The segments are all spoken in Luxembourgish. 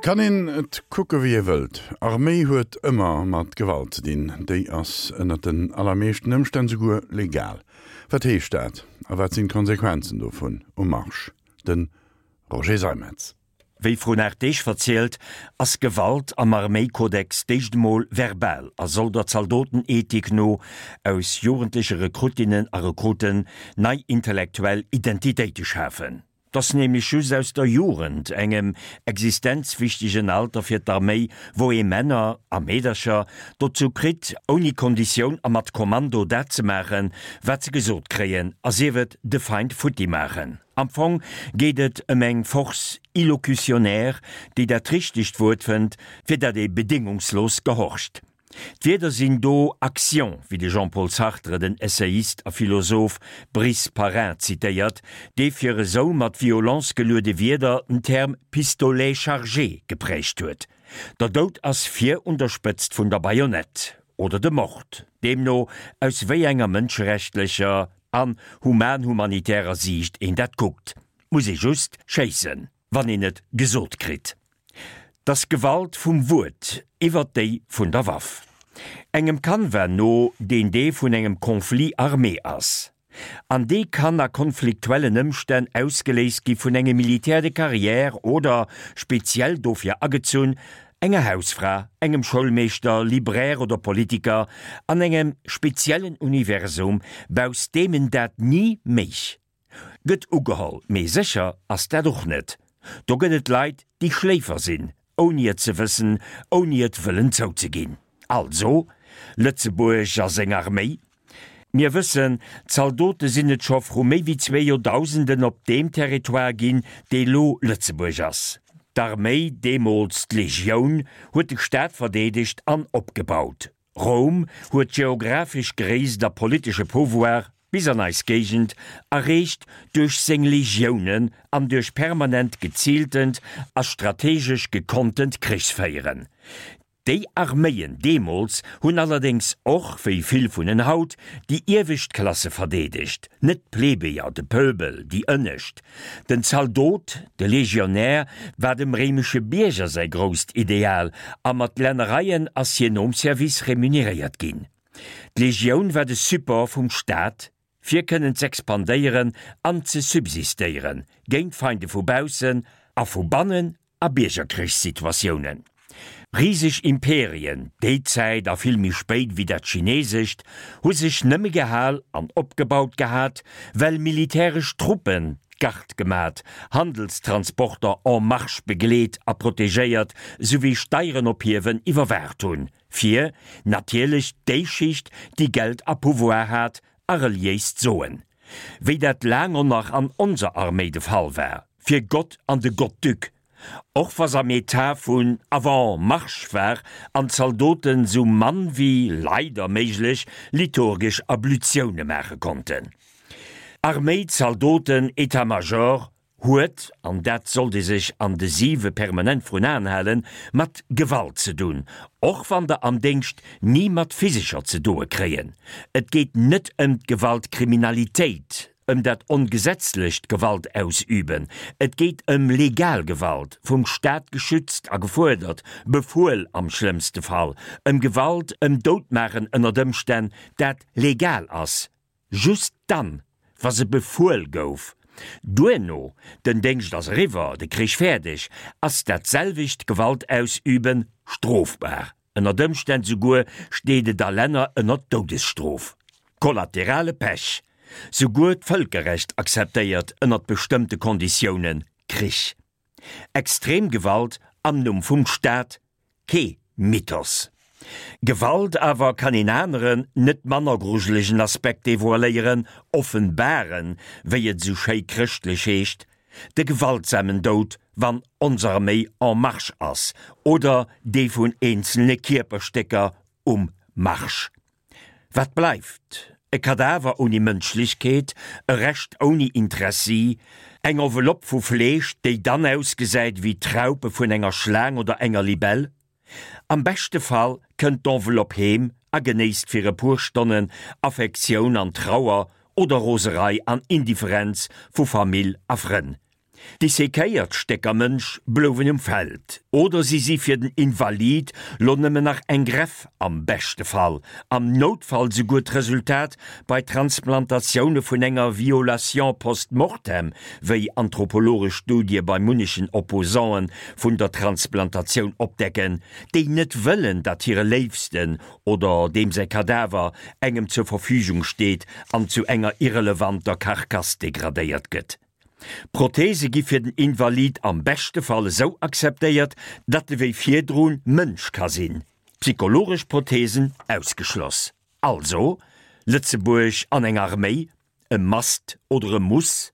Kann een et kucke wéi ee wëllt, Arméi huet ëmmer mat Gewalt ze dinn. Déi ass ënnert den allermeeschten Ëmstänn souguer legal. Wat heescht dat a wat sinn d'Konsequenzen dovun um Marsch? De Roger Seimetz. Wéi vrun 8 Deeg verzielt, ass Gewalt am Arméikodex d'éischt emol verbal a soll der Zaldotenethik no aus jugendleche Rekruttinnen a Rekruten nei intellektuell Identitéite schafen. 't ass nämlech just aus der Jugend, engem existenzwichtegen Alter fir d'Arméi, wou ee Männer, a Meedercher, dozou kritt, ouni Konditioun a mat Kommando dat ze maachen, wat se gesot kréien, a sief et de Feind futti maachen. Am Fong geet et ëm eng Force illocutionnaire, déi dat richtegt Wuert fënnt, fir dat ee bedéngungslos gehorcht. D'Wierder sinn do Action, wéi de Jean-Paul Sartre den Essayist a Philosoph Brice Parrain zitéiert, dee fir esou mat Violence geluede Wierder den Term pistolet chargé geprägt huet. Der Doud ass vir un der Spëtzt vun der Bajonett, oder de Mord, deemno aus wéi enger mënscherechtlecher an human-humanitärer Siicht een dat kuckt, muss ee just schéissen, wann een et gesot kritt. 't ass Gewalt vum Wuert iwwert déi vun der Waff. Engem Canevas no, deen dee vun engem Conflit armé ass. An dee kann a konfliktuellen Ëmstänn ausgeléist gi vun engem Militaire de carrière oder, speziell dofir agezunn, enger Hausfra, engem Schoulmeeschter, Libraire oder Politiker an engem speziellen Universum, bausst deem en dat ni méich. Gëtt ugeholl, mee sécher ass dat och net. Do gëtt et Leit, déi Schléifer sinn, ouni et ze wëssen, ouni et wëllen zouzeginn. Also, Lëtzebuerg a seng Arméi. Mir wëssen, Zaldote sinn et scho vru méi wéi zwee Joerdausenden op deem Territoire ginn, dee lo Lëtzebuerg ass. D'Arméi, deemools d'Legioun, huet de Staat verdeedegt an opgebaut. Roum huet d'geographesch Gréisst a politesche Pouvoir bis an eis Géigend erreecht duerch seng Legiounen an duerch permanent geziiltent a strategesch gekonntent Krichsféieren. Déi Arméien deemools hunn allerdéngs och, wéi vill vun en haut, déi iewescht Klasse verdeedegt, net d'Plebejer, de Pöbel, déi ënnescht. Den Zaldot, de Legionär, war dem réimesche Bierger säi grousst Ideal a mat Lännereien ass hien nom Service remuneréiert ginn. D'Legioun war de Support vum Staat, fir kënnen z'expandéieren an ze subsistéieren, géint Feinde vu baussen a vu bannen a Biergerkrichssituatiounen. Riseg Imperien, déi Zäit a vill méi spéit wéi dat chinesescht, hu sech nëmme gehal an opgebaut gehat, well militäresch Truppen d'Gard gemat, Handelstransporter en marche begleet a protegéiert souwéi Steieren ophiewen iwwerwaacht hunn, fir natierlech déi Schicht, déi Geld a Pouvoir hat, a reliéist Soen, wéi dat laang on nach an onser Arméi de Fall war, fir Gott an de Gottduc, och wa s'am Etat vun avant marche war an d'Zaldoten sou mann wéi, leider, méiglech liturgesch Ablutioune maache konnten. Arméi, Zaldoten, Etat-Major, huet, an dat sollt ee sech an de siwe permanent vrun Aen halen, mat Gewalt ze dunn, och wann der am Déngscht ni mat physescher ze doe kréien. Et geet net ëm d'Gewaltkriminalitéit, ëm dat ongesetzlecht Gewaltausüben, et geet ëm legal Gewalt, vum Staat geschützt a gefuerdert, befuel am schlëmmste Fall, ëm Gewalt, ëm Doutmaachen ënnert Ëmstänn, dat legal ass. Just dann, wa se befuel gouf. Duerno, den Déngscht ass eriwwer, de Krich fäerdeg, ass dat selwecht Gewaltausüben strofbar. Ënnert Ëmstänn souguer steet et a Länner ënnert Doudesstrof. Kollaterale Pech, Souguer d'Vëlkerrecht akzeptéiert ënnert bestëmmte Konditiounen Krich. Extrem Gewalt am Numm vum Staat, Kee Mythos. Gewalt awer kann een aneren, net manner grujelegen Aspekt devoiléieren, offenbaren, wéi et esou schéi chrëschtlech heescht, de gewaltsamen Doud, wann ons Arméi en marche ass, oder dee vun eenzelne Kierperstécker um Marsch. Wat bleift? E Kadaver ouni Mënschlechkeet, e Rescht ouni Interessi, eng Enveloppe vu Fleesch, déi dann ausgesäit wéi d'Raupe vun enger Schlaang oder enger Libell. Am beschte Fall kënnt d'Enveloppe heem a genéisst fir e puer Stonnen Affektioun an Trauer oder Roserei an Indifferenz vu Famill a Frënn. Dissekéiert Stécker Mënsch blouwen um Feld, oder si si fir den Invalid lo nëmmen nach eng Greff, am beschte Fall, am Noutfall souguer d'Resultat bei Transplantatioune vun enger Violation post-mortem, wéi anthropologesch Studie bei munnechen Opposanten vun der Transplantatioun opdecken, déi net wëllen, datt hire Léifsten oder deem säi Kadaver engem zur Verfügung steet an zu enger irrelevanter Karkass degradéiert gëtt. Prothese gi fir den Invalid am beschte Fall esou akzeptéiert, datt e wéi virdrun Mënsch ka sinn, psychologesch Prothesen ausgeschloss. Also, Lëtzebuerg an eng Arméi, e Must oder e Muss?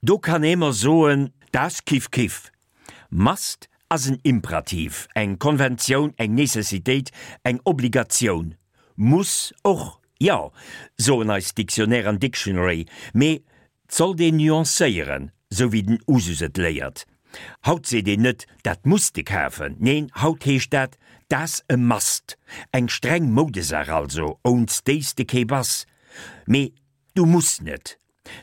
Do kann ee mer soen, Da's kif kif. Must ass en Imperativ, eng Konventioun, eng Necessitéit, eng Obligatioun. Muss och, jo, soen eis Dictionnaire an Dictionary, mee 't sollt een nuancéieren, sou wéi den Usus et léiert. Haut seet een net, dat muss de kafen, neen, haut heescht dat, 't ass e Must, eng streng Moudesaach also, ouns déi s de kee bass. Mee du muss net.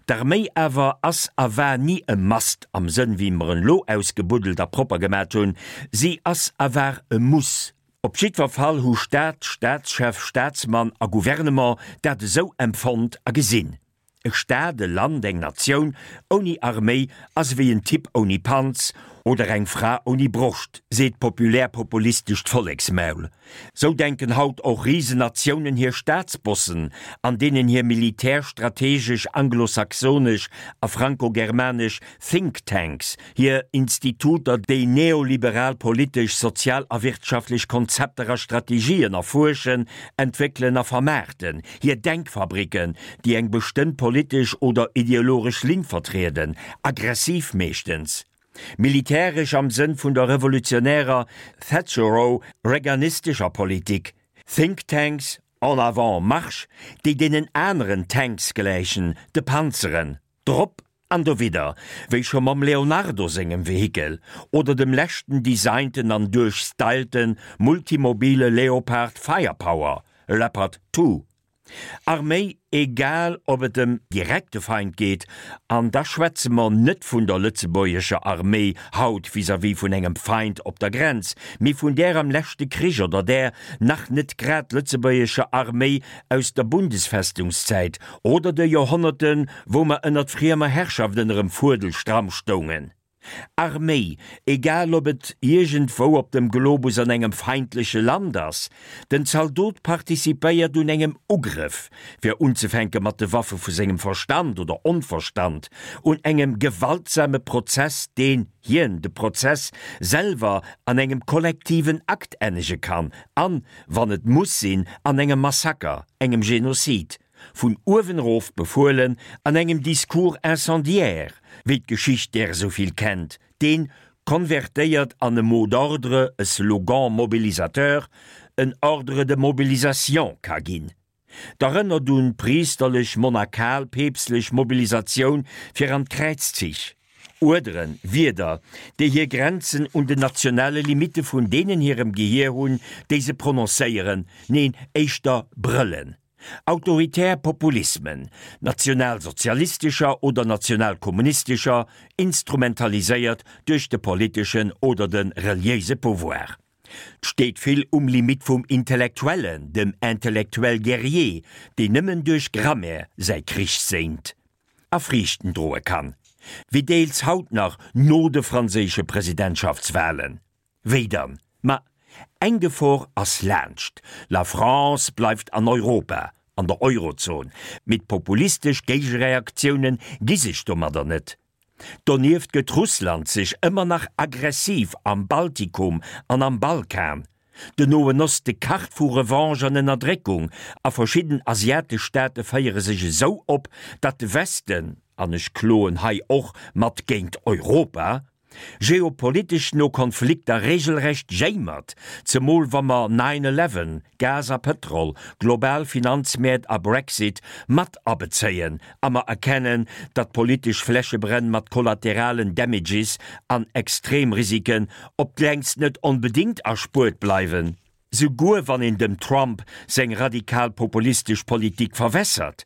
D'Arméi awer ass a war ni e Must am Sënn wéi mer en lo ausgebuddelt a propper gemat hunn, si ass a war e Muss. Op jiddwer Fall hu Staat, Staatschef, Staatsmann a Gouvernement dat esou empfonnt a gesinn. E Staat, e Land, eng Natioun ouni Arméi ass ewéi en Typ ouni Panz oder eng Fra ouni Broscht, seet d'populär-populistescht Volleksmaul. Sou denken haut och Risenatiounen hir Staatsbossen, an deenen hir militärstrategesch anglosaxonesch a frankogermanesch Think Tanks, hir Instituter, déi neoliberal politesch, sozial a wirtschaftlech Konzepter a Strategien erfuerschen, entwéckelen a vermaarten, hir Denkfabricken, déi eng bestëmmt politesch oder ideologesch Linn vertrieden, aggressiv meeschtens. Militäresch am Sënn vun der revolutionärer Thatchero-Reaganistescher Politik, Think Tanks en avant marche, déi deenen aneren Tanks gläichen, de Panzeren, drop an dowidder, wéi scho mam Leonardo sengem Vehikel oder dem leschten designten an duerchstylte multimobile Leopard Firepower, Leopard 2. Arméi, egal ob et em direkte Feind geet, an da schwätze mer net vun der lëtzebuergescher Arméi haut vis-à-vis vun engem Feind op der Grenz, mee vun där am leschte Krich oder där nach net grad lëtzebuergescher Arméi aus der Bundesfestungszäit oder de Joerhonnerten, wou mer ënnert friemer Herrschaft ënnerem Fuedel stramm stoungen. Arméi, egal ob et iergendwou op dem Globus an engem feindleche Land ass, den Zaldot participéiert un engem Ugrëff, fir unzefänke mat de Waffe vu sengem Verstand oder Onverstand, un engem gewaltsame Prozess, deen hien, de Prozess, selwer an engem kollektiven Akt ennege kann an, wann et muss sinn, an engem Massaker, engem Genozid. Vun uewen erof befuelen, an engem Discours incendiaire, wéi d'Geschicht där esou vill kennt, deen, konvertéiert an e Mot d'ordre, e Slogan mobilisateur, en Ordre de mobilisation ka ginn. D'erënnert un d'priesterlech-monakal-peepstlech Mobilisatioun fir an d'Kräizzich. Uerderen, Wierder, déi hir Grenzen un den nationale Limitte vun deenen hirem Gehier hunn, déi se prononcéieren, neen, éischter brëllen. Autoritär Populismen, nationalsozialistescher oder nationalkommunistescher, instrumentaliséiert duerch de politeschen oder de reliéise Pouvoir. 't steet vill um Limit vum Intellektuellen, dem Intellectuel guerrier, deen nëmmen duerch Grammaire säi Krich séint a Friichten droe kann, wéi deels haut nach no de franséische Presidentschaftswahlen. Wéi dann? Ma eng Gefor ass laanscht, La France bleift an Europa, an der Eurozon, mee d'populistesch Géigereaktioune gi sech domadder net. Donieft gëtt Russland sech ëmmer nach aggressiv am Baltikum an am Balkan. Den Noen Oste kacht vu Revanche an Ënnerdréckung a verschidden asiatesch Staate féiere sech esou op, datt de Westen, an ech kloen hei och mat géint Europa, geopolitesch no Konflikter regelrecht jéimert, zemol wa mer Nine Eleven, Gas a Pëtrol, global Finanzmäert a Brexit mat abezéien a mer erkennen, datt politesch Flächebränn mat kollateralen Damages an Extremrisiken op d'längst net onbedéngt erspuert bleiwen, souguer wann een dem Trump seng radikal-populistesch Politik verwässert.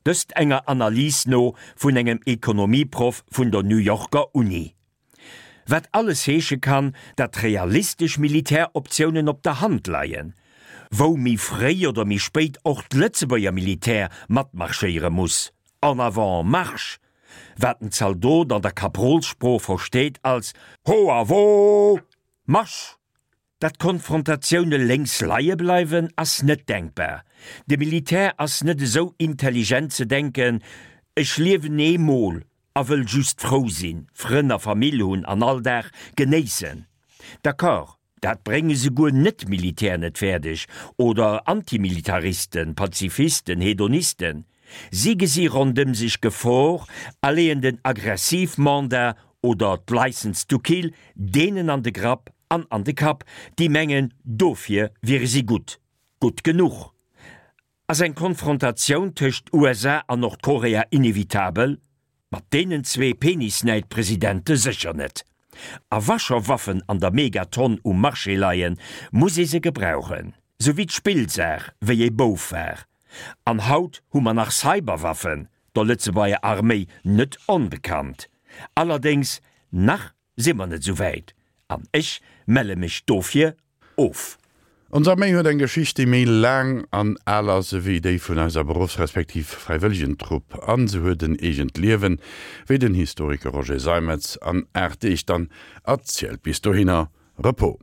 Dëst enger Analys no vun engem Ekonomieproff vun der New Yorker Uni. Wat alles heesche kann, datt realistesch Militäroptiounen op der Hand leien, wou méi fréi oder méi spéit och d'Lëtzebuerger Militär matmarschéiere muss, En avant, marche! Wat den Zaldot an der Kaprolssprooch versteet als Ho a wo, marsch! Datt Konfrontatioune lénks leie bleiwen, ass net denkbar. De Militär ass net esou intelligent ze denken, ech liewen ee Mol a wëll just frou sinn, Frënn a Famill hunn an all Dag genéissen. D'accord, dat brénge souguer Net-Militär net fäerdeg, oder Antimilitaristen, Pazifisten, Hedonisten. Si gesi rondëm sech Gefor a leeën den Aggressivmandat oder d'License to kill deenen an de Grapp an an de Kapp, déi mengen, dofir wiere si gutt. Gutt genuch. Ass eng Konfrontatioun tëscht USA an Nordkorea inevitabel? Mat deenen zwee Penisnäid-Presidente sécher net. A wa scho Waffen an der Megatonn um Marché leien, muss ee se gebrauchen. Sou wéi d'Spillsaach, wéi ee Bouf war. An haut hu mer nach Cyberwaffen, der Lëtzebuerger Arméi net onbekannt. Allerdéngs, nach si mer net esou wäit an ech melle mech dofir of. Ons Arméi huet eng Geschicht, déi méi laang an al ass ewéi déi vun eiser Beruffs respektiv Fräiwëllegentrupp an se huet en eegent Liewen, wéi den Historiker Roger Seimetz an 8 Deeg dann erzielt. Bis dohinner, Repos.